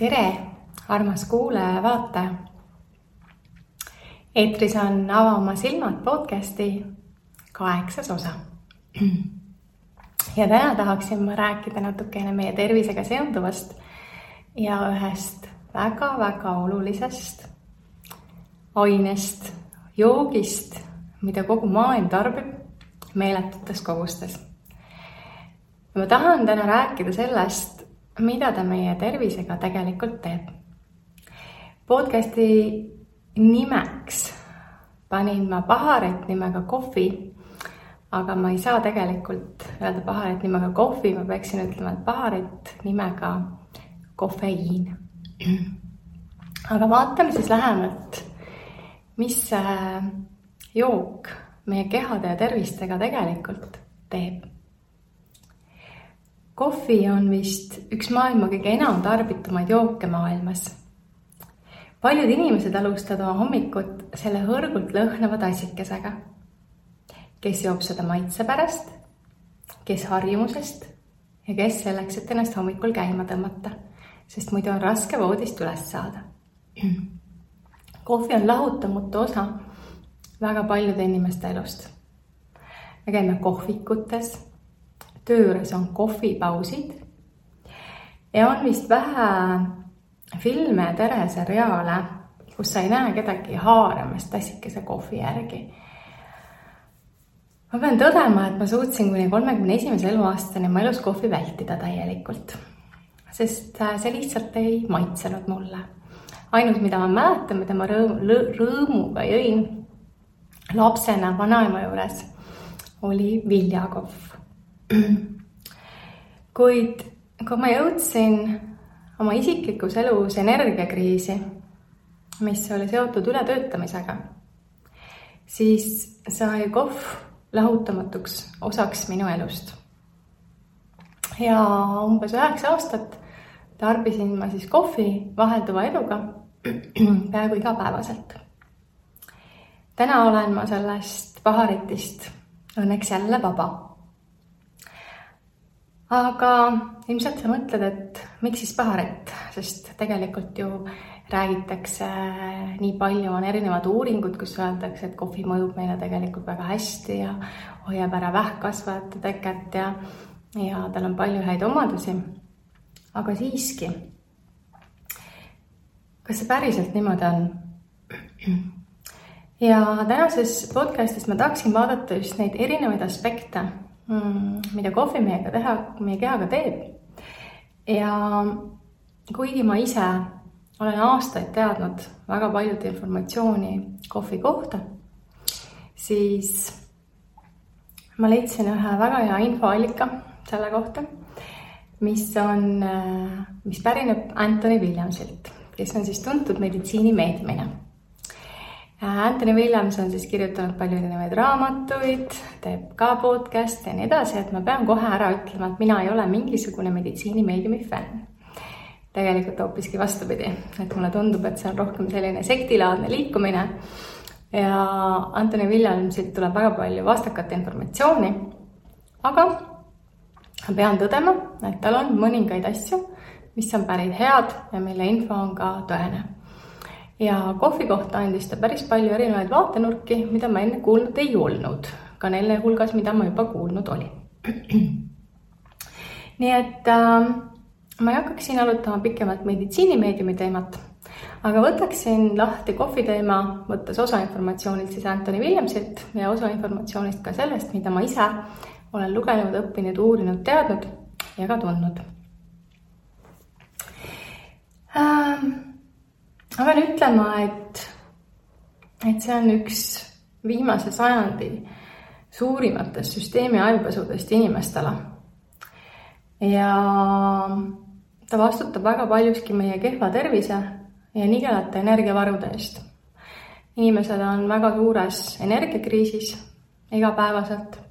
Tere, armas kuulaja ja vaataja. Eetris on Ava oma silmad podcasti 8. osa. Ja täna tahaksin ma rääkida natukene meie tervisega seonduvast ja ühest väga-väga olulisest ainest, joogist, mida kogu maailm tarbib meeletutes kogustes. Ma tahan täna rääkida sellest, mida ta meie tervisega tegelikult teeb. Podcasti nimeks panin ma paharet nimega kohvi, aga ma ei saa tegelikult öelda paharet nimega kohvi, ma peaksin ütlema, et paharet nimega kofeiin. Aga vaatame siis lähemalt, mis jook meie kehade ja tervistega tegelikult teeb. Kohvi on vist üks maailma kõige enam tarbitumaid jooke maailmas. Paljud inimesed alustavad oma hommikut selle hõrgult lõhnava tassikesega. Kes joob seda maitse pärast, kes harjumusest ja kes selleks, et ennast hommikul käima tõmmata, sest muidu on raske voodist üles saada. Kohvi on lahutamatu osa väga paljude inimeste elust. Me käime kohvikutes, töö juures on kohvipausid ja on vist vähe filme ja teleseriaale, kus sa ei näe kedagi haaramas tassikese kohvi järgi. Ma pean tõdema, et ma suutsin kuni 31. eluaastani oma elus kohvi vältida täielikult, sest see lihtsalt ei maitsenud mulle. Ainus, mida ma mäletan, mida ma rõõmuga jõin lapsena vanaema juures, oli viljakohv. Kuid kui ma jõudsin oma isiklikus elus energiakriisi, mis oli seotud ületöötamisega, siis sai kohv lahutamatuks osaks minu elust. Ja umbes 9 aastat tarbisin ma siis kohvi vahelduva eluga peaaegu igapäevaselt. Täna olen ma sellest paharitist õnneks jälle vaba. Aga ilmselt sa mõtled, et miks siis paharet, sest tegelikult ju räägitakse nii palju, on erinevad uuringud, kus öeldakse, et kohvi mõjub meile tegelikult väga hästi ja hoiab ära vähkkasvajate teket ja tal on palju häid omadusi. Aga siiski, kas see päriselt niimoodi on? Ja tänases podcastis ma tahaksin vaadata just neid erinevaid aspekte, mida kohvi meie kehaga teeb. Ja kuigi ma ise olen aastaid teadnud väga paljud informatsiooni kohvi kohta, siis ma leidsin ühe väga hea infoallika selle kohta, mis pärineb Anthony Williamsilt, kes on siis tuntud meditsiinimeediumina. Anthony Williams on siis kirjutanud palju erinevaid raamatuid, teeb ka podcast ja nii edasi, et ma pean kohe ära ütlema, et mina ei ole mingisugune meditsiinimeediumi fänn. Tegelikult hoopiski vastupidi, et mulle tundub, et see on rohkem selline sektilaadne liikumine ja Anthony Williamsilt tuleb väga palju vastakat informatsiooni, aga ma pean tõdema, et tal on mõningaid asju, mis on päris head ja mille info on ka tõene. Ja kohvi kohta andis ta päris palju erinevaid vaatenurki, mida ma enne kuulnud ei olnud, ka neile hulgas, mida ma juba kuulnud oli. Nii et ma ei hakkaks siin alutama pikemalt meditsiinimeediumi teemat, aga võtaksin lahti kohvi teema, võttes osa informatsioonilt siis Anthony Williamsilt ja osa informatsioonist ka sellest, mida ma ise olen lugenud, õppinud, uurinud, teadnud ja ka tundnud. Ma pean ütlema, et see on üks viimase sajandi suurimatest süsteemi ajupesudest inimestele. Ja ta vastutab väga paljuski meie kehva tervise ja nigelate energiavarude eest. Inimesed on väga suures energiakriisis igapäevaselt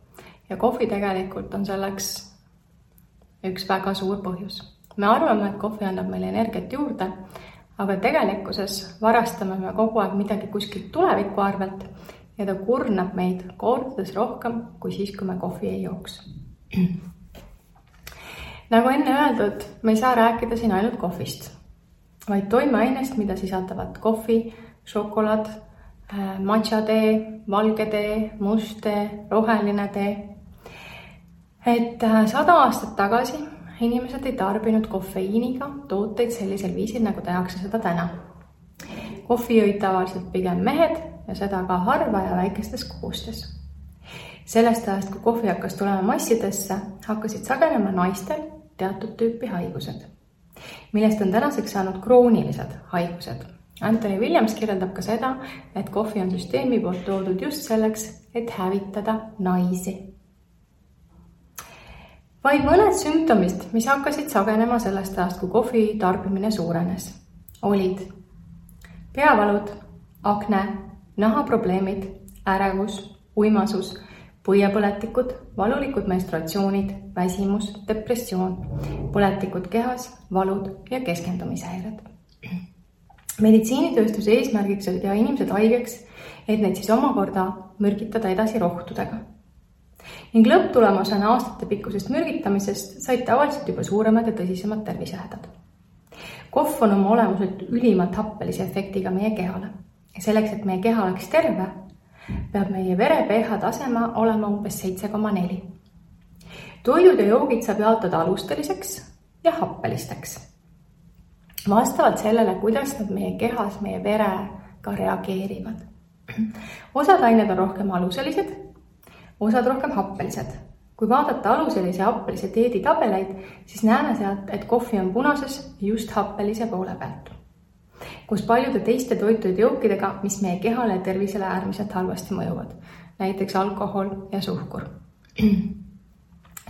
ja kohvi tegelikult on selleks üks väga suur põhjus. Me arvame, et kohvi annab meile energiat juurde, aga tegelikkuses varastame me kogu aeg midagi kuskilt tuleviku arvelt ja ta kurnab meid kordades rohkem kui siis, kui me kohvi ei jooks. Nagu enne öeldud, me ei saa rääkida siin ainult kohvist. vaid toimeainest, mida sisaldavad kohvi, šokolaad, matša tee, valge tee, must tee, roheline tee. Et 100 aastat tagasi inimesed ei tarbinud kofeiiniga tooteid sellisel viisil, nagu tehakse seda täna. Kohvi jõid tavaliselt pigem mehed ja seda ka harva ja väikestes kogustes. Sellest ajast, kui kohvi hakkas tulema massidesse, hakkasid sagenema naistel teatud tüüpi haigused, millest on tänaseks saanud kroonilised haigused. Anthony Williams kirjeldab ka seda, et kohvi on süsteemi poolt toodud just selleks, et hävitada naisi. Vaid mõned sümptomid, mis hakkasid sagenema sellest ajast, kui kohvi tarbimine suurenes, olid peavalud, akne, nahaprobleemid, ärevus, uimasus, põiepõletikud, valulikud menstruatsioonid, väsimus, depressioon, põletikud kehas, valud ja keskendumishäired. Meditsiinitööstuse eesmärgiks oli teha inimesed haigeks, et neid siis omakorda mürgitada edasi rohtudega. Ning lõpptulemusena aastate pikkusest mürgitamisest said tavaliselt juba suuremad ja tõsisemad tervisehädad. Kohv on oma olemuselt ülimalt happelise efektiga meie kehale. Ja selleks, et meie keha oleks terve, peab meie vere pH tasema olema umbes 7,4. Toidud ja joogid saab jaotada alusteliseks ja happelisteks. Vastavalt sellele, kuidas nad meie kehas, meie verega reageerivad. Osad ained on rohkem aluselised, osad rohkem happelised. Kui vaadata aluselise ja happelise dieeditabeleid, siis näeme sealt, et kohvi on punases just happelise poole pealt. Kus paljude teiste toitude jookidega, mis meie kehale ja tervisele äärmiselt halvasti mõjuvad, näiteks alkohol ja suhkur.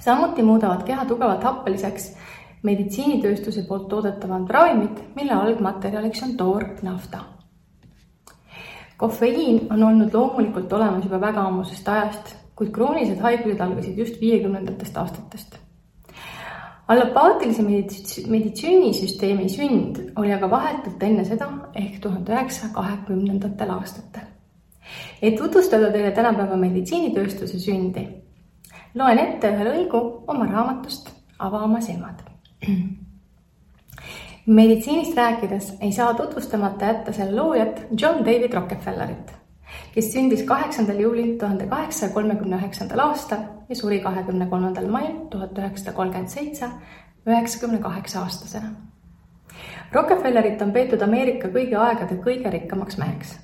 Samuti muudavad keha tugevalt happeliseks meditsiinitööstuse poolt toodetavad ravimid, mille algmaterjaliks on toornafta. Kofeiin on olnud loomulikult olemas juba väga ammusest ajast, kuid kroonilised haigused algasid just 50. aastatest. Allopaatilise meditsiinisüsteemi sünd oli aga vahetult enne seda ehk 1920. aastatel. Et tutvustada teile tänapäeva meditsiinitööstuse sündi, loen ette ühe lõigu oma raamatust Ava oma silmad. Meditsiinist rääkides ei saa tutvustamata jätta selle loojat John David Rockefellerit, kes sündis 8. juulil 1839. aastal ja suri 23. mail 1937 98-aastasena. Rockefellerit on peetud Ameerika kõigi aegade kõige rikkamaks meheks.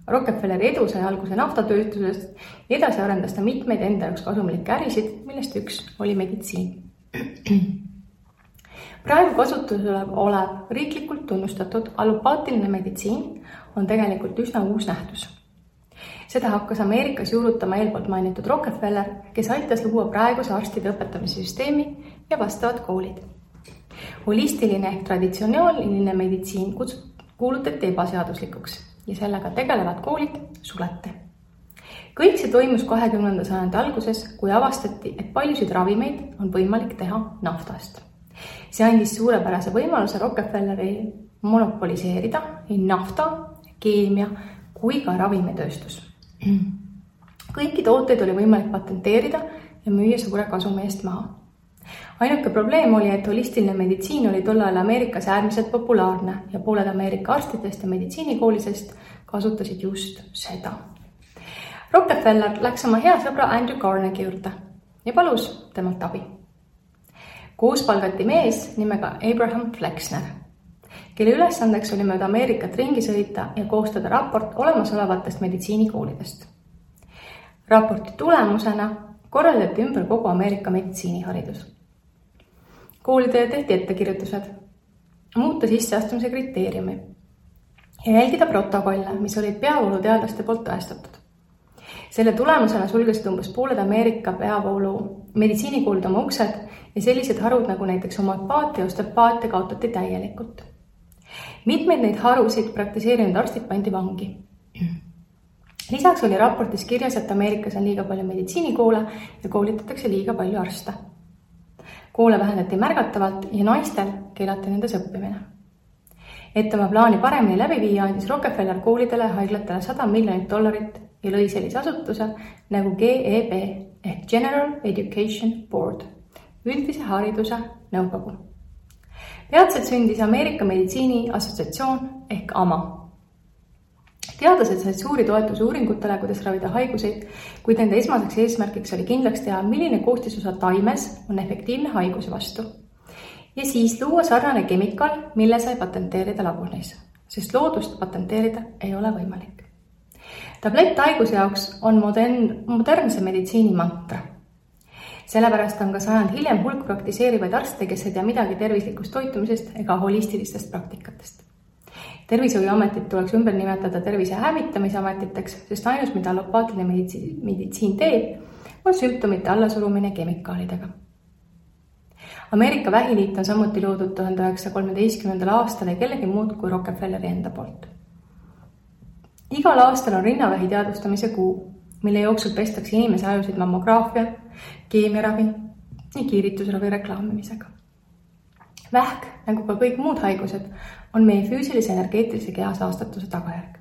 Rockefelleri edu sai alguse naftatööstusest ja edasi arendas ta mitmeid enda jaoks kasumlikke ärisid, millest üks oli meditsiin. Praegu kasutusel olev riiklikult tunnustatud allopaatiline meditsiin on tegelikult üsna uus nähtus. Seda hakkas Ameerikas juurutama eelpoolt mainitud Rockefeller, kes aitas luua praeguse arstide õpetamise süsteemi ja vastavad koolid. Holistiline ehk traditsiooniline meditsiin kuulutati ebaseaduslikuks ja sellega tegelevad koolid suleti. Kõik see toimus 20. sajandi alguses, kui avastati, et paljusid ravimeid on võimalik teha naftast. See andis suurepärase võimaluse Rockefelleri monopoliseerida nii nafta, keemia kui ka ravimitööstus. Kõiki tooteid oli võimalik patenteerida ja müüa suure kasumi eest maha. Ainuke probleem oli, et holistiline meditsiin oli tollal Ameerikas äärmiselt populaarne ja pooled Ameerika arstidest ja meditsiinikoolisest kasutasid just seda. Rockefeller läks oma hea sõbra Andrew Carnegie juurde ja palus temalt abi. Koos palgati mees nimega Abraham Flexner, kelle ülesandeks oli mööda Ameerikat ringi sõita ja koostada raport olemasolevatest meditsiinikoolidest. Raporti tulemusena korraldati ümber kogu Ameerika meditsiiniharidus. Koolidele tehti ettekirjutused, muuta sisseastumise kriteeriumi ja jälgida protokolle, mis olid peavooluteadlaste poolt tõestatud. Selle tulemusena sulgesid umbes pooled Ameerika peavoolu meditsiinikoolid oma uksed ja sellised harud nagu näiteks homöopaatia ja osteopaatia kaotati täielikult. Mitmeid neid harusid praktiseerinud arstid pandi vangi. Lisaks oli raportis kirjas, et Ameerikas on liiga palju meditsiinikoole ja koolitatakse liiga palju arste. Koole vähendati märgatavalt ja naistel keelati nendes õppimine. Et oma plaani paremini läbi viia, andis Rockefeller koolidele ja haiglatele $100 miljonit ja lõi sellise asutuse nagu GEB ehk General Education Board, üldise hariduse nõukogu. Peatselt sündis Ameerika Meditsiini Assotsiatsioon ehk AMA. Teadlased said suuri toetusi uuringutele, kuidas ravida haiguseid, kuid nende esmaseks eesmärgiks oli kindlaks teha, milline koostisosa taimes on efektiivne haiguse vastu. Ja siis luua sarnane kemikaal, mille sai patenteerida laboris, sest loodust patenteerida ei ole võimalik. Tablett haiguse jaoks on modernse meditsiini mantra. Sellepärast on ka sajand hiljem hulk praktiseerivaid arste, kes ei tea midagi tervislikust toitumisest ega holistilistest praktikatest. Tervishoiuametit tuleks ümber nimetada tervise hävitamise ametiteks, sest ainus, mida allopaatiline meditsiin teeb, on sümptomite allasurumine kemikaalidega. Ameerika Vähiliit on samuti loodud 1913. aastal ja kellegi muud kui Rockefelleri enda poolt. Igal aastal on rinnavähi teadvustamise kuu, mille jooksul pestakse inimese ajusid mammograafia, keemiaravi ja kiiritusravi reklaamimisega. Vähk, nagu ka kõik muud haigused, on meie füüsilise energeetilise keha saastatuse tagajärg.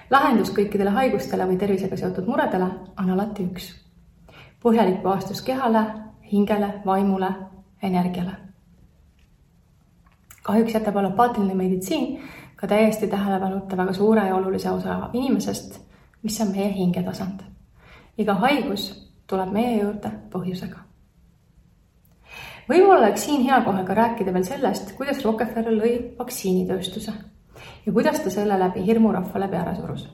Lahendus kõikidele haigustele või tervisega seotud muredele on alati üks. Põhjalik puhastus kehale, hingele, vaimule, energiale. Kahjuks jätab allopaatiline meditsiin ka täiesti tähelepanuta väga suure ja olulise osa inimesest, mis on meie hingetasand. Iga haigus tuleb meie juurde põhjusega. Võib-olla oleks siin hea kohe ka rääkida veel sellest, kuidas Rockefeller lõi vaktsiinitööstuse ja kuidas ta selle läbi hirmu rahvale peale surus.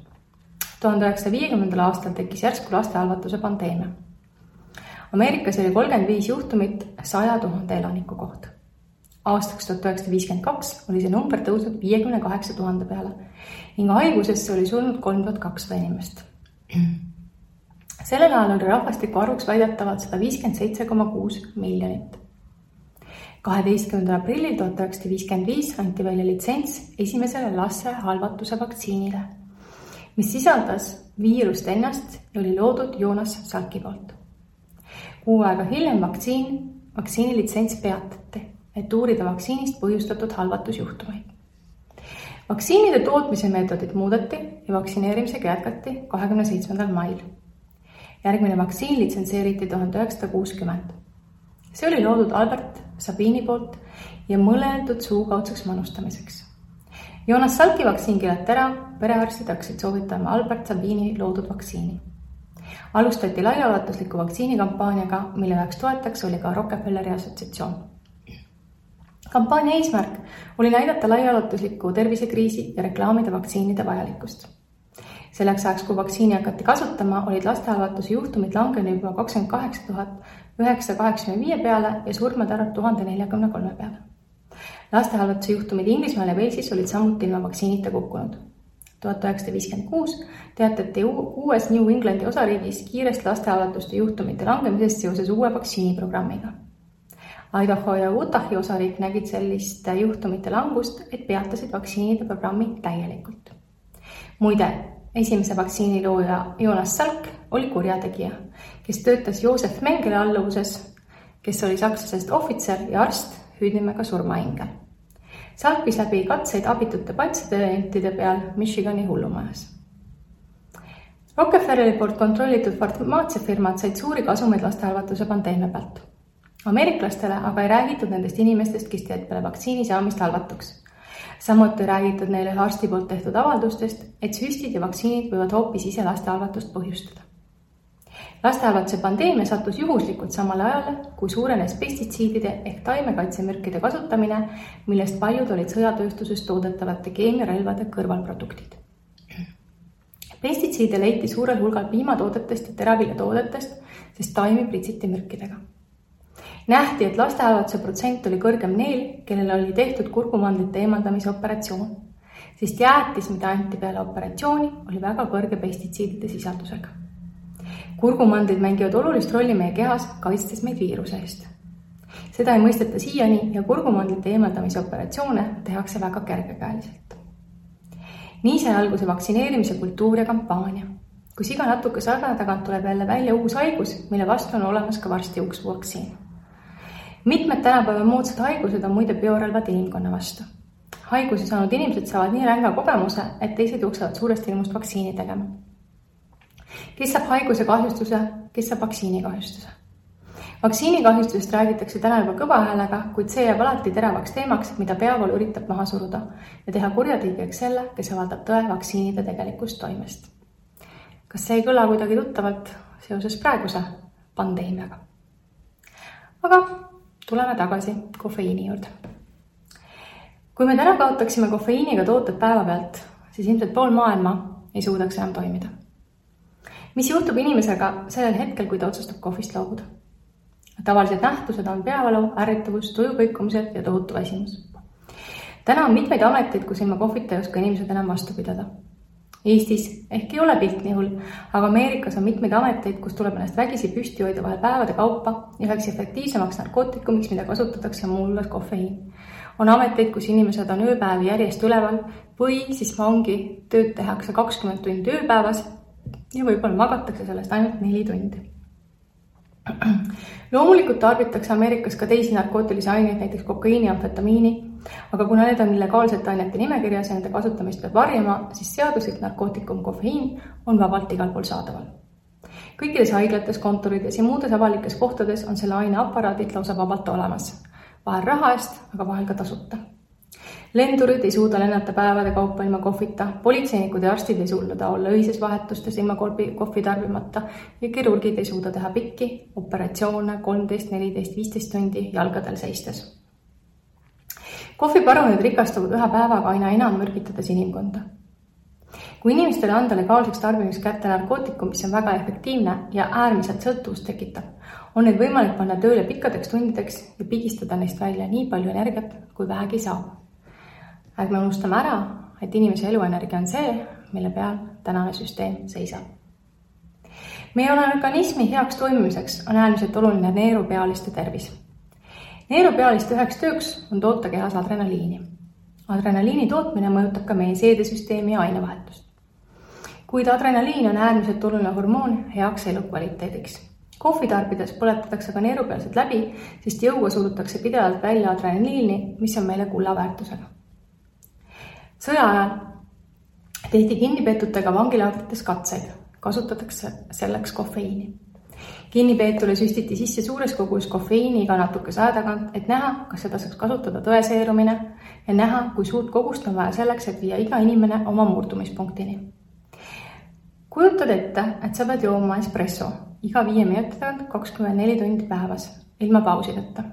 1950. aastal tekkis järsku lastehalvatuse pandeemia. Ameerikas oli 35 juhtumit 100 000 elaniku kohta. Aastaks 1952 oli see number tõusnud 58 000 peale ning haigusesse oli surnud 3200 inimest. Sellel ajal oli rahvastiku arvuks väidetavalt 157,6 miljonit. 12. aprillil 1955 anti välja litsents esimesele lastehalvatuse vaktsiinile, mis sisaldas viirust ennast ja oli loodud Jonas Salki poolt. Kuu aega hiljem vaktsiini litsents peatati, et uurida vaktsiinist põhjustatud halvatusjuhtumeid. Vaktsiinide tootmise meetodid muudeti ja vaktsineerimisega jätkati 27. mail. Järgmine vaktsiin litsenseeriti 1960. See oli loodud Albert Sabini poolt ja mõeldud suukaudseks manustamiseks. Jonas Salki vaktsiin keelati ära, perearstid hakkasid soovitama Albert Sabini loodud vaktsiini. Alustati laiaulatusliku vaktsiinikampaaniaga, mille üheks toetaks oli ka Rockefelleri assotsiatsioon. Kampaania eesmärk oli näidata laiaulatuslikku tervisekriisi ja reklaamida vaktsiinide vajalikkust. Selleks ajaks, kui vaktsiini hakati kasutama, olid lastehalvatuse juhtumid langenud juba 28 985 peale ja surmade arv 1043 peale. Lastehalvatuse juhtumid Inglismaal ja Walesis olid samuti ilma vaktsiinita kukkunud. 1956 teatati uues New Englandi osariigis kiirest lastehalvatuste juhtumite langemisest seoses uue vaktsiiniprogrammiga. Idaho ja Utahi osariik nägid sellist juhtumite langust, et peatasid vaktsiinide programmi täielikult. Muide, esimese vaktsiini looja Jonas Salk oli kurjategija, kes töötas Joosef Mengele alluvuses, kes oli sakslasest ohvitser ja arst hüüdnimega surmaingel. Salk viis läbi katseid abitute patsientide peal Michigani hullumajas. Rockefelleri poolt kontrollitud farmaatsiafirmad said suuri kasumeid lastehalvatuse pandeemia pealt. Ameeriklastele aga ei räägitud nendest inimestest, kes teed peale vaktsiini saamist halvatuks. Samuti räägitud neile arsti poolt tehtud avaldustest, et süstid ja vaktsiinid võivad hoopis ise lastehalvatust põhjustada. Lastehalvatuse pandeemia sattus juhuslikult samale ajale, kui suurenes pestitsiidide ehk taimekaitsemürkide kasutamine, millest paljud olid sõjatööstuses toodetavate keemiarelvade kõrvalproduktid. Pestitsiide leiti suurel hulgal piimatoodetest ja teraviljatoodetest, sest taimi pritsiti mürkidega. Nähti, et lastehalvatuse protsent oli kõrgem neil, kellel oli tehtud kurkumandlite eemaldamise operatsioon, sest jäätis, mida anti peale operatsiooni, oli väga kõrge pestitsiidide sisaldusega. Kurkumandlid mängivad olulist rolli meie kehas, kaitstes meid viiruse eest. Seda ei mõisteta siiani ja kurkumandlite eemaldamise operatsioone tehakse väga kergekäeliselt. Nii sai alguse vaktsineerimise kultuur ja kampaania. Kus iga natuke aja tagant tuleb jälle välja uus haigus, mille vastu on olemas ka varsti uus vaktsiin. Mitmed tänapäeva moodsad haigused on muide biorelvad inimkonna vastu. Haiguse saanud inimesed saavad nii ränga kogemuse, et teised jooksevad suurest ilmust vaktsiini tegema. Kes saab haiguse kahjustuse, kes saab vaktsiini kahjustuse? Vaktsiinikahjustusest räägitakse täna juba kõva häälega, kuid see jääb alati teravaks teemaks, mida peavoolu üritab maha suruda ja teha kurjategijaks selle, kes avaldab tõe vaktsiinide tegelikust toimest. Kas see ei kõla kuidagi tuttavalt seoses praeguse pandeemiaga? Aga tuleme tagasi kofeiini juurde. Kui me täna kaotaksime kofeiiniga tooted päeva pealt, siis ilmselt pool maailma ei suudaks enam toimida. Mis juhtub inimesega sellel hetkel, kui ta otsustab kohvist loobuda? Tavalised nähtused on peavalu, ärritavus, tujukõikumised ja tohutu väsimus. Täna on mitmeid ameteid, kus ilma kohvita ei oska inimesed enam vastu pidada. Eestis ehk ei ole pilt nii hull, aga Ameerikas on mitmeid ameteid, kus tuleb ennast vägisi püsti hoida vahel päevade kaupa ja üheks efektiivsemaks narkootikumiks, mida kasutatakse muu hulgas kofeiin. On ameteid, kus inimesed on ööpäevi järjest üleval või siis ongi tööd tehakse 20 tundi ööpäevas ja võib-olla magatakse sellest ainult 4 tundi. Loomulikult tarbitakse Ameerikas ka teisi narkootilisi aineid, näiteks kokaiini ja amfetamiini, aga kuna need on illegaalsete ainete nimekirjas ja nende kasutamist peab varjama, siis seaduslik narkootikum kofeiin on vabalt igal pool saadaval. Kõikides haiglates, kontorides ja muudes avalikes kohtades on selle aine aparaadid lausa vabalt olemas. Vahel raha eest, aga vahel ka tasuta. Lendurid ei suuda lennata päevade kaupa ilma kohvita, politseinikud ja arstid ei suuda olla öises vahetustes ilma kohvi tarbimata ja kirurgid ei suuda teha pikki operatsioone 13, 14, 15 tundi jalgadel seistes. Kohviparunid rikastuvad ühe päevaga aina enam mürgitades inimkonda. Kui inimestele anda legaalseks tarbimiseks kätte narkootikum, mis on väga efektiivne ja äärmiselt sõltuvust tekitab, on neid võimalik panna tööle pikkadeks tundideks ja pigistada neist välja nii palju energiat, kui vähegi saab. Ärme unustame ära, et inimese eluenergia on see, mille peal tänane süsteem seisab. Meie organismi heaks toimimiseks on äärmiselt oluline neerupealiste tervis. Neerupealiste üheks tööks on toota kehas adrenaliini. Adrenaliini tootmine mõjutab ka meie seedesüsteemi ja ainevahetust. Kuid adrenaliin on äärmiselt oluline hormoon heaks elukvaliteediks. Kohvi tarbides põletatakse ka neerupealsed läbi, sest jõuga surutakse pidevalt välja adrenaliini, mis on meile kullaväärtusega. Sõja ajal tehti kinnipeetutega vangilaagrites katseid, kasutatakse selleks kofeiini. Kinnipeetule süstiti sisse suures kogus kofeiini iga natuke aja tagant, et näha, kas seda saaks kasutada tõeseerumine ja näha, kui suurt kogust on vaja selleks, et viia iga inimene oma murdumispunktini. Kujutad ette, et sa pead jooma espresso iga 5 minuti tagant 24 tundi päevas, ilma pausideta.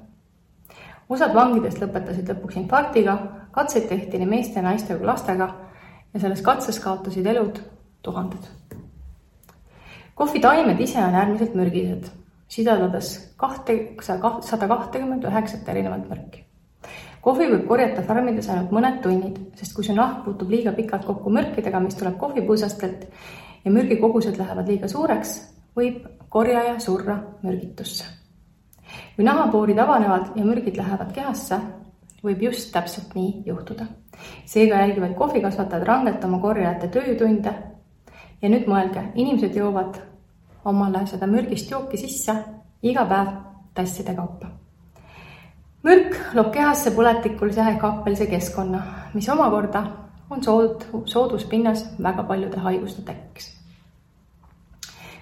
Osad vangidest lõpetasid lõpuks infarktiga, katseid tehti nii meeste ja naiste kui lastega ja selles katses kaotasid elud tuhanded. Kohvitaimed ise on äärmiselt mürgised, sidadades 129 erinevat mürki. Kohvi võib korjata farmides ainult mõned tunnid, sest kui su nahk puutub liiga pikalt kokku mürkidega, mis tuleb kohvipuusastelt ja mürgikogused lähevad liiga suureks, võib korjaja surra mürgitusse. Kui nahapoorid avanevad ja mürgid lähevad kehasse, võib just täpselt nii juhtuda. Seega jälgivad kohvikasvatajad rangelt oma korjajate töötunde ja nüüd mõelge, inimesed joovad omale seda mürgist jooki sisse iga päev tasside kaupa. Mürk loob kehasse põletikulise ehk happelise keskkonna, mis omakorda on sooduspinnas väga paljude haiguste tekkeks.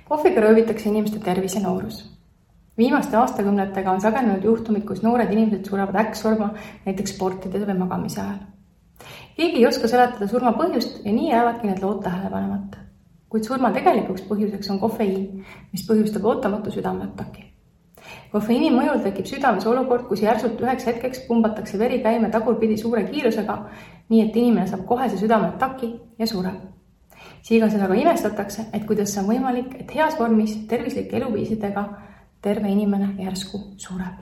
Kohviga röövitakse inimeste tervis ja noorus. Viimaste aastakümnetega on sagenenud juhtumid, kus noored inimesed surevad äkksurma näiteks sportides või magamise ajal. Keegi ei oska seletada surma põhjust ja nii jäävadki need lood tähelepanemata. Kuid surma tegelikuks põhjuseks on kofeiin, mis põhjustab ootamatu südameataki. Kofeiini mõjul tekib südames olukord, kus järsult üheks hetkeks pumbatakse veri käima tagurpidi suure kiirusega, nii et inimene saab kohese südameataki ja sureb. Siiga seda ka imestatakse, et kuidas see on võimalik, et heas vormis tervislike eluviisidega terve inimene järsku sureb.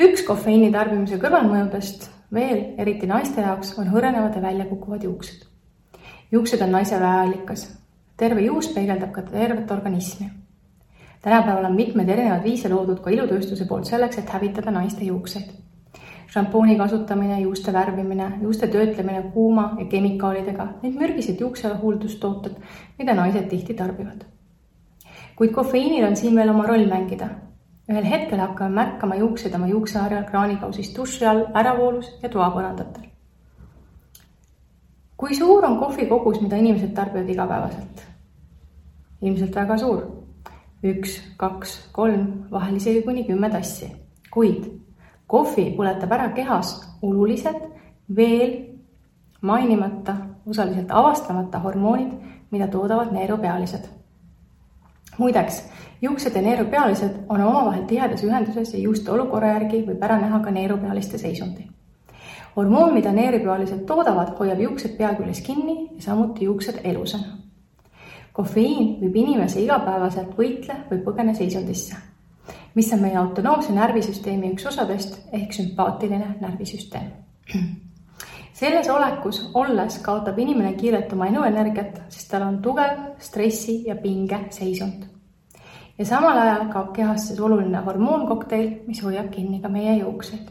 Üks kofeiini tarbimise kõrvalmõjudest veel, eriti naiste jaoks, on hõrenevad ja välja kukuvad juuksed. Juuksed on naise väeallikas. Terve juus peegeldab ka tervet organismi. Tänapäeval on mitmed erinevad viise loodud ka ilutööstuse poolt selleks, et hävitada naiste juukseid. Šampooni kasutamine, juuste värvimine, juuste töötlemine kuuma ja kemikaalidega, need mürgised juuksehuldustooted, mida naised tihti tarbivad. Kuid kofeiinil on siin veel oma roll mängida. Ühel hetkel hakkame märkama juuksed oma juukseharjal, kraanikausist, duši all, äravoolus ja toapõrandatel. Kui suur on kohvi kogus, mida inimesed tarbivad igapäevaselt? Ilmselt väga suur. 1, 2, 3, vahel isegi kuni 10 tassi. Kuid kohvi põletab ära kehas olulised, veel mainimata, osaliselt avastamata hormoonid, mida toodavad neerupealised. Muideks, juuksed ja neerupealised on omavahel tihedas ühenduses ja juuste olukorra järgi võib ära näha ka neerupealiste seisundi. Hormoon, mida neerupealised toodavad, hoiab juuksed pea küljes kinni ja samuti juuksed elusana. Kofeiin viib inimese igapäevaselt võitle või põgene seisundisse, mis on meie autonoomse närvisüsteemi üks osadest ehk sümpaatiline närvisüsteem. Selles olekus olles kaotab inimene kiirelt oma eluenergiat, sest tal on tugev stressi ja pinge seisund. Ja samal ajal kaob kehast oluline hormoonkokteil, mis hoiab kinni ka meie juukseid.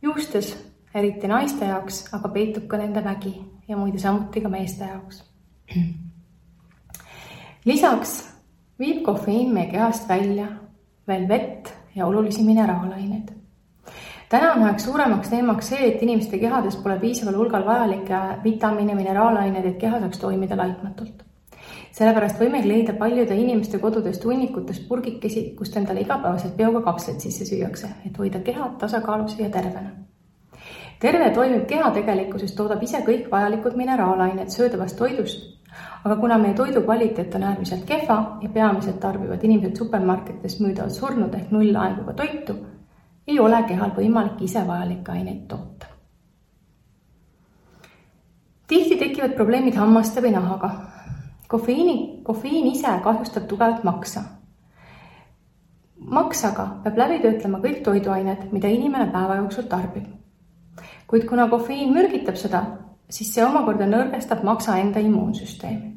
Juustes, eriti naiste jaoks, aga peitub ka nende vägi ja muide samuti ka meeste jaoks. Lisaks viib kofeiin meie kehast välja veel vett ja olulisi mineraalaineid. Täna on üheks suuremaks teemaks see, et inimeste kehades pole piisaval hulgal vajalikke vitamiine, mineraalaineid, et keha saaks toimida laitmatult. Sellepärast võime leida paljude inimeste kodudest hunnikutest purgikesi, kust endale igapäevaselt bioga kapsled sisse süüakse, et hoida keha tasakaalus ja tervena. Terve toimib keha tegelikkuses toodab ise kõik vajalikud mineraalained söödavast toidust, aga kuna meie toidu kvaliteet on äärmiselt kehva ja peamiselt tarbivad inimesed supermarketist müüdavad surnud ehk nullaenguga toitu, ei ole kehal võimalik ise vajalikke aineid toota. Tihti tekivad probleemid hammaste või nahaga. Kofeiin ise kahjustab tugevalt maksa. Maksaga peab läbi töötlema kõik toiduained, mida inimene päeva jooksul tarbib. Kuid kuna kofeiin mürgitab seda, siis see omakorda nõrgestab maksa enda immuunsüsteemi.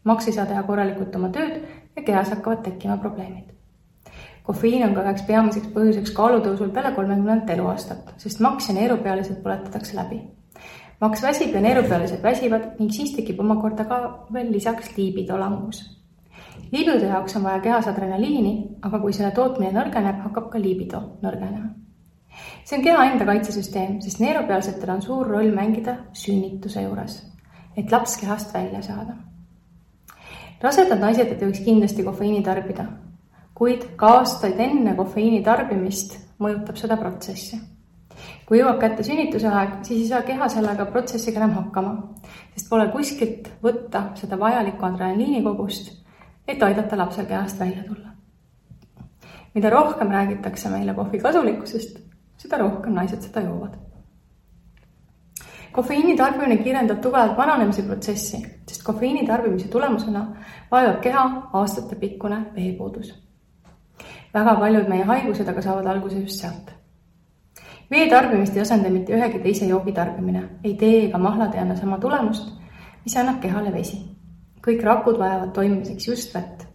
Maks ei saa teha korralikult oma tööd ja kehas hakkavad tekkima probleemid. Kofeiin on ka üheks peamiseks põhjuseks kaalutõusul peale 30 eluaastat, sest maks ja neerupealised põletatakse läbi. Maks väsib ja neerupealised väsivad ning siis tekib omakorda ka veel lisaks liibido langus. Liibido jaoks on vaja kehas adrenaliini, aga kui selle tootmine nõrgeneb, hakkab ka liibido nõrgenema. See on keha enda kaitsesüsteem, sest neerupealsetel on suur roll mängida sünnituse juures, et laps kehast välja saada. Rasedad naised ei tohiks kindlasti kofeiini tarbida, kuid ka aastaid enne kofeiini tarbimist mõjutab seda protsessi. Kui jõuab kätte sünnituse aeg, siis ei saa keha sellega protsessiga enam hakkama, sest pole kuskilt võtta seda vajalikku adrenaliinikogust, et aidata lapsel kehast välja tulla. Mida rohkem räägitakse meile kohvi kasulikkusest, seda rohkem naised seda joovad. Kofeiini tarbimine kiirendab tugevalt vananemise protsessi, sest kofeiini tarbimise tulemusena vajab keha aastate pikkune veepuudus. Väga paljud meie haigused aga saavad alguse just sealt. Vee tarbimist ei asenda mitte ühegi teise joogi tarbimine, ei tee ega mahlad ei anna sama tulemust, mis annab kehale vesi. Kõik rakud vajavad toimimiseks just vett.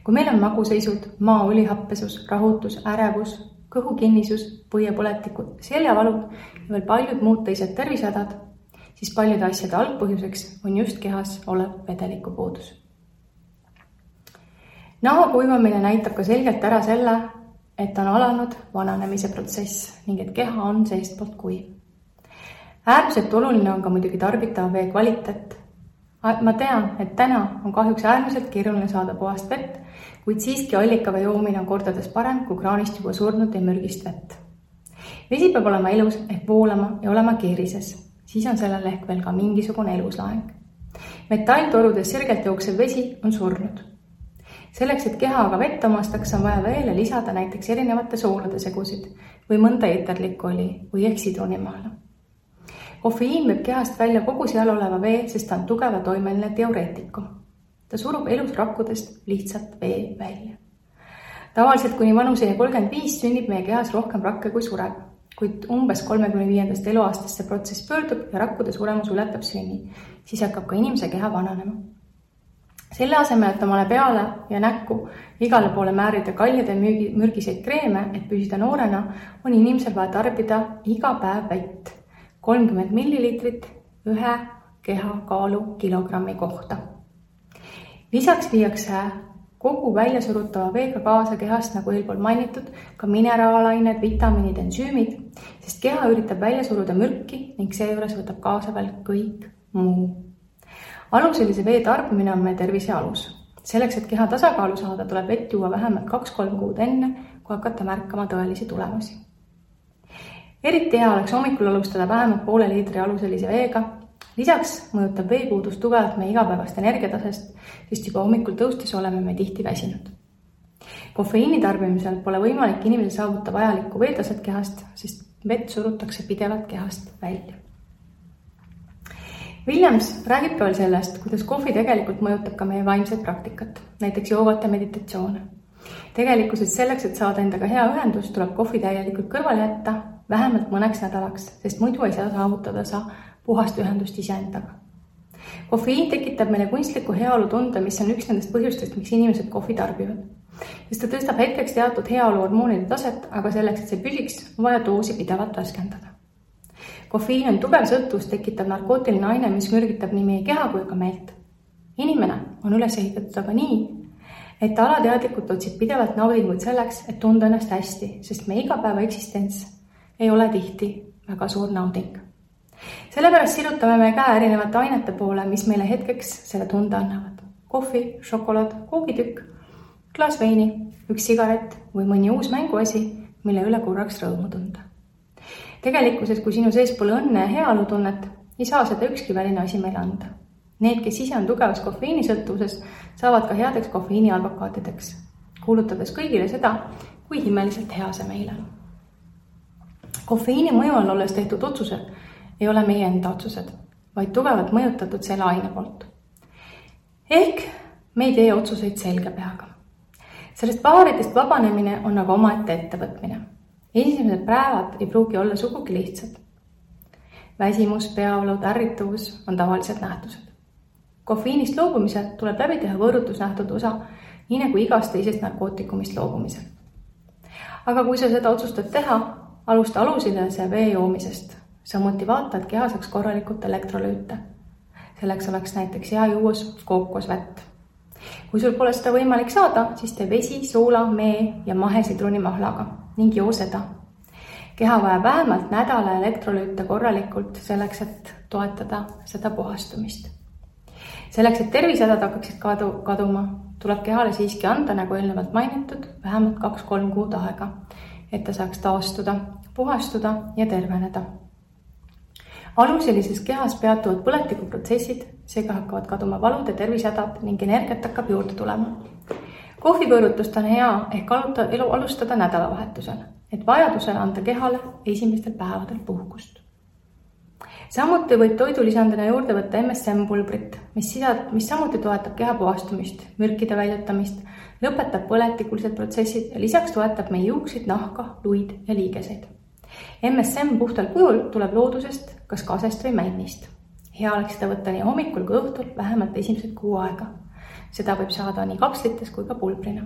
Kui meil on maguseisud, maa-õlihappesus, rahutus, ärevus, kõhukinnisus, põiepõletikud, seljavalud ja veel paljud muud teised tervisehädad, siis paljude asjade algpõhjuseks on just kehas olev vedeliku puudus. Naha kuivamine näitab ka selgelt ära selle, et on alanud vananemise protsess ning et keha on seestpoolt kuiv. Äärmiselt oluline on ka muidugi tarbitava vee kvaliteet. Ma tean, et täna on kahjuks äärmiselt keeruline saada puhast vett, kuid siiski allikavee joomine on kordades parem kui kraanist juba surnud ja mürgist vett. Vesi peab olema elus ehk voolama ja olema keerises, siis on sellel ehk veel ka mingisugune eluslaeng. Metalltorudes sirgelt jooksev vesi on surnud. Selleks, et keha aga vett omastaks, on vaja veele lisada näiteks erinevate soolade segusid või mõnda eeterlikku oli või ehk sidrunimaala. Kofeiin võib kehast välja kogu seal oleva vee, sest ta on tugeva toimeline diureetikum. Ta surub elus rakkudest lihtsalt vee välja. Tavaliselt kuni vanuseni 35 sünnib meie kehas rohkem rakke kui sureb, kuid umbes 35. eluaastast see protsess pöördub ja rakkude suremus ületab sünni, siis hakkab ka inimese keha vananema. Selle asemel, et omale peale ja näkku igale poole määrida kaljade mürgiseid kreeme, et püsida noorena, on inimesel vaja tarbida iga päev vett 30 millilitrit ühe kehakaalu kilogrammi kohta. Lisaks viiakse kogu väljasurutava veega kaasa kehast, nagu eelpool mainitud, ka mineraalained, vitamiinid, ensüümid, sest keha üritab välja suruda mürki ning seejuures võtab kaasa veel kõik muu. Aluselise vee tarbimine on meie tervise alus. Selleks, et keha tasakaalu saada, tuleb vett juua vähemalt 2-3 kuud enne, kui hakata märkama tõelisi tulemusi. Eriti hea oleks hommikul alustada vähemalt poole liitri aluselise veega. Lisaks mõjutab veepuudus tugevalt meie igapäevast energiatasest, sest juba hommikul tõustes oleme me tihti väsinud. Kofeiini tarbimisel pole võimalik inimesel saavuta vajalikku veetaset kehast, sest vett surutakse pidevalt kehast välja. Williams räägib ka veel sellest, kuidas kohvi tegelikult mõjutab ka meie vaimset praktikat, näiteks joogat ja meditatsioone. Tegelikkuses selleks, et saada endaga hea ühendus, tuleb kohvi täielikult kõrvale jätta vähemalt mõneks nädalaks, sest muidu ei saa saavutada puhast ühendust iseendaga. Kofeiin tekitab meile kunstliku heaolu tunde, mis on üks nendest põhjustest, miks inimesed kohvi tarbivad. Sest ta tõstab hetkeks teatud heaolu hormoonide taset, aga selleks, et see püsiks, on vaja doosi pidevalt värskendada. Kofeiin on tugev sõltuvust tekitav narkootiline aine, mis mürgitab nii meie keha kui ka meelt. Inimene on üles ehitatud aga nii, et ta alateadlikult otsib pidevalt naudinguid selleks, et tunda ennast hästi, sest meie igapäeva eksistents ei ole tihti väga suur nauding. Sellepärast sirutame me käe erinevate ainete poole, mis meile hetkeks selle tunde annavad. Kohvi, šokolaad, koogitükk, klaas veini, üks sigaret või mõni uus mänguasi, mille üle korraks rõõmu tunda. Tegelikkuses, kui sinu sees pole õnne ja heaolu tunnet, ei saa seda ükski väline asi meile anda. Need, kes ise on tugevas kofeiinisõltuvuses, saavad ka headeks kofeiini advokaatideks, kuulutades kõigile seda, kui himmeliselt hea see meile on. Kofeiini mõju all olles tehtud otsused ei ole meie enda otsused, vaid tugevalt mõjutatud selle aine poolt. Ehk me ei tee otsuseid selge peaga. Sellest paaridest vabanemine on aga omaette ettevõtmine. Esimesed päevad ei pruugi olla sugugi lihtsad. Väsimus, peavalu, ärrituvus on tavalised nähtused. Kofeiinist loobumisel tuleb läbi teha võõrutusnähtud osa, nii nagu igast teisest narkootikumist loobumisel. Aga kui sa seda otsustad teha, alusta alusilise vee joomisest. Samuti vaata, et keha saaks korralikult elektrolüüte. Selleks oleks näiteks hea juues kookosvett. Kui sul pole seda võimalik saada, siis tee vesi, soola, mee ja mahesitrunimahlaga ning joo seda. Keha vajab vähemalt nädala elektrolüüte korralikult selleks, et toetada seda puhastumist. Selleks, et tervisehädad hakkaksid kaduma, tuleb kehale siiski anda, nagu eelnevalt mainitud, vähemalt 2-3 kuud aega, et ta saaks taastuda, puhastuda ja terveneda. Aluselises kehas peatuvad põletikuprotsessid, seega hakkavad kaduma valud ja tervisehädad ning energiat hakkab juurde tulema. Kohvivõõrutust on hea ehk alustada nädalavahetusel, et vajadusel anda kehale esimestel päevadel puhkust. Samuti võib toidulisandina juurde võtta MSM-pulbrit, mis samuti toetab keha puhastumist, mürkide väljutamist, lõpetab põletikulised protsessid ja lisaks toetab meie juukseid, nahka, luid ja liigeseid. MSM puhtal kujul tuleb loodusest, kas kasest või männist. Hea oleks seda võtta nii hommikul kui õhtul vähemalt esimesed 6 aega. Seda võib saada nii kapslites kui ka pulbrina.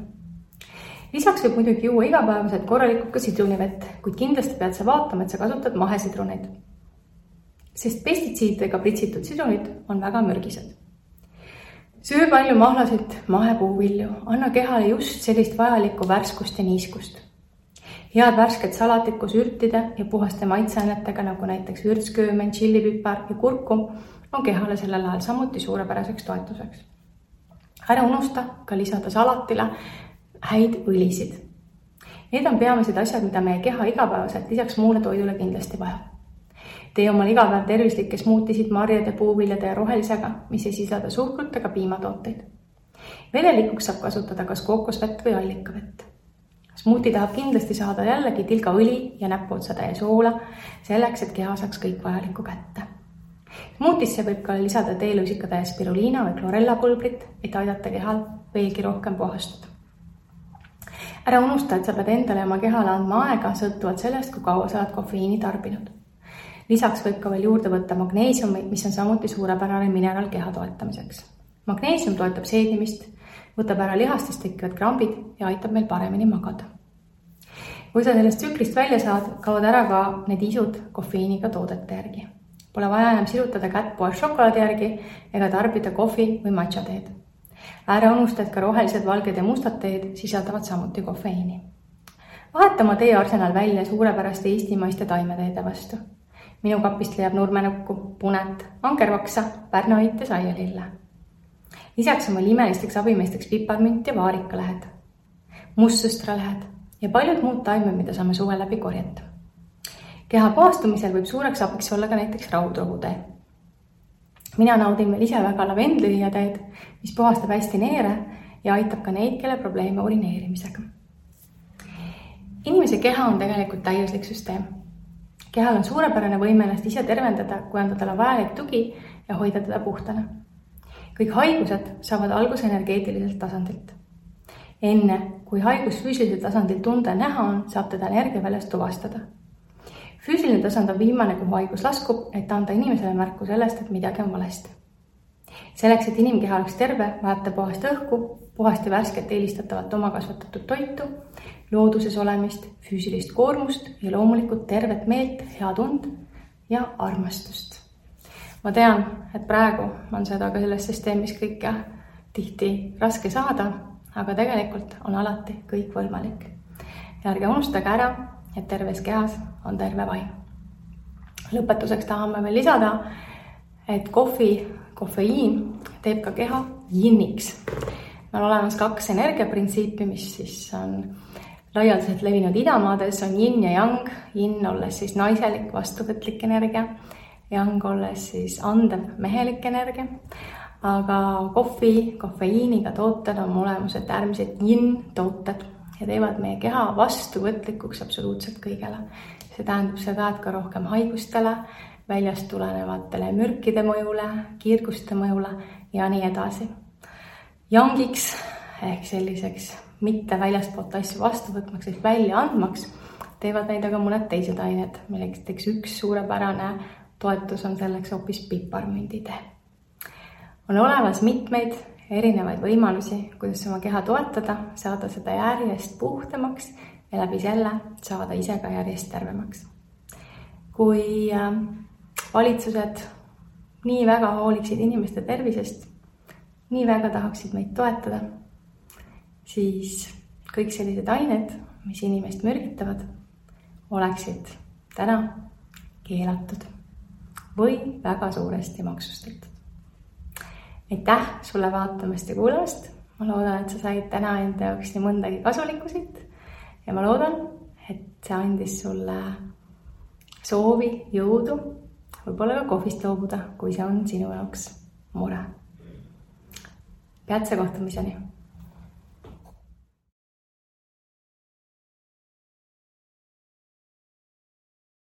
Lisaks võib muidugi juua igapäevaselt korralikult ka sidrunivett, kuid kindlasti pead sa vaatama, et sa kasutad mahesidruneid. Sest pestitsiididega pritsitud sidrunid on väga mürgised. Söö palju mahlasid, mahepuuvilju, anna kehale just sellist vajalikku värskust ja niiskust. Head värsket salatit koos ürtide ja puhaste maitseainetega, nagu näiteks vürtsköömen, tšillipipar ja kurkum, on kehale sellel ajal samuti suurepäraseks toetuseks. Ära unusta ka lisada salatile häid õlisid. Need on peamised asjad, mida meie keha igapäevaselt lisaks muule toidule kindlasti vajab. Tee omal igapäev tervislikke smuutisid marjade, puuviljade ja rohelisega, mis ei sisalda suhkrut ega piimatooteid. Vedelikuks saab kasutada kas kookosvett või allikavett. Smuuti tahab kindlasti saada jällegi tilgaõli ja näpuotsatäie soola, selleks, et keha saaks kõik vajalikku kätte. Smuutisse võib ka lisada teelusikataja spiruliina või klorellapulbrit, et aidata kehal veelgi rohkem puhastuda. Ära unusta, et sa pead endale oma kehale andma aega sõltuvalt sellest, kui kaua sa oled kofeiini tarbinud. Lisaks võib ka veel juurde võtta magneesiumi, mis on samuti suurepärane mineraal keha toetamiseks. Magneesium toetab seedimist, võtab ära lihastest tekkivad krambid ja aitab meil paremini magada. Kui sa sellest tsüklist välja saad, kaovad ära ka need isud kofeiiniga toodete järgi. Pole vaja enam sirutada kätt poes šokolaadi järgi ega tarbida kohvi või matša teed. Ära unusta, et ka rohelised, valged ja mustad teed sisaldavad samuti kofeiini. Vaheta oma teearsenal välja suurepäraste eestimaiste taimeteede vastu. Minu kapist leiab nurmenukku, punet, angervaksa, pärnaõit ja saialille. Lisaks on meil imelisteks abimeesteks piparmünt ja vaarikalehed, mustsõstralehed ja paljud muud taimed, mida saame suve läbi korjata. Keha puhastumisel võib suureks abiks olla ka näiteks raudrohutee. Mina naudin veel ise väga lavendlililjateed, mis puhastab hästi neere ja aitab ka neid, kelle probleeme urineerimisega. Inimese keha on tegelikult täiuslik süsteem. Kehal on suurepärane võime ennast ise tervendada, kui anda talle vajalik tugi ja hoida teda puhtana. Kõik haigused saavad alguse energeetiliselt tasandilt. Enne, kui haigus füüsilisel tasandil tunda ja näha on, saab teda energiaväljast tuvastada. Füüsiline tasand on viimane, kuhu haigus laskub, et anda inimesele märku sellest, et midagi on valesti. Selleks, et inimkeha oleks terve, vajab ta puhast õhku, puhast ja värsket eelistatavat oma kasvatatud toitu, looduses olemist, füüsilist koormust ja loomulikult tervet meelt, head und ja armastust. Ma tean, et praegu on seda ka selles süsteemis kõike tihti raske saada, aga tegelikult on alati kõik võimalik. Ja ärge unustage ära, et terves kehas on terve vaim. Lõpetuseks tahame veel lisada, et kofeiin teeb ka keha jinniks. On olemas 2 energiaprintsiipi, mis siis on laialdaselt levinud idamaades, on yin ja yang. Yin olles siis naiselik, vastuvõtlik energia, yang olles siis andev, mehelik energia. Aga kofeiiniga tooted on olemuselt äärmiselt yin tooted ja teevad meie keha vastuvõtlikuks absoluutselt kõigele. See tähendab seda, et ka rohkem haigustele, väljast tulenevatele mürkide mõjule, kiirguste mõjule ja nii edasi. Yangiks ehk selliseks mitte väljastpoolt asju vastuvõtmaks ehk välja andmaks teevad neid aga mõned teised ained, milleks üks suurepärane toetus on selleks hoopis piparmünditee. On olemas mitmeid erinevaid võimalusi, kuidas oma keha toetada, saada seda järjest puhtamaks ja läbi selle saada ise ka järjest tervemaks. Kui valitsused nii väga hooliksid inimeste tervisest, nii väga tahaksid meid toetada, siis kõik sellised ained, mis inimest mürgitavad, oleksid täna keelatud või väga suuresti maksustatud. Aitäh sulle vaatamast ja kuulamast. Ma loodan, et sa said täna enda jaoks nii mõndagi kasulikku siit ja ma loodan, et see andis sulle soovi, jõudu, võib-olla ka kohvist loobuda, kui see on sinu jaoks mure. Peatse kohtumiseni!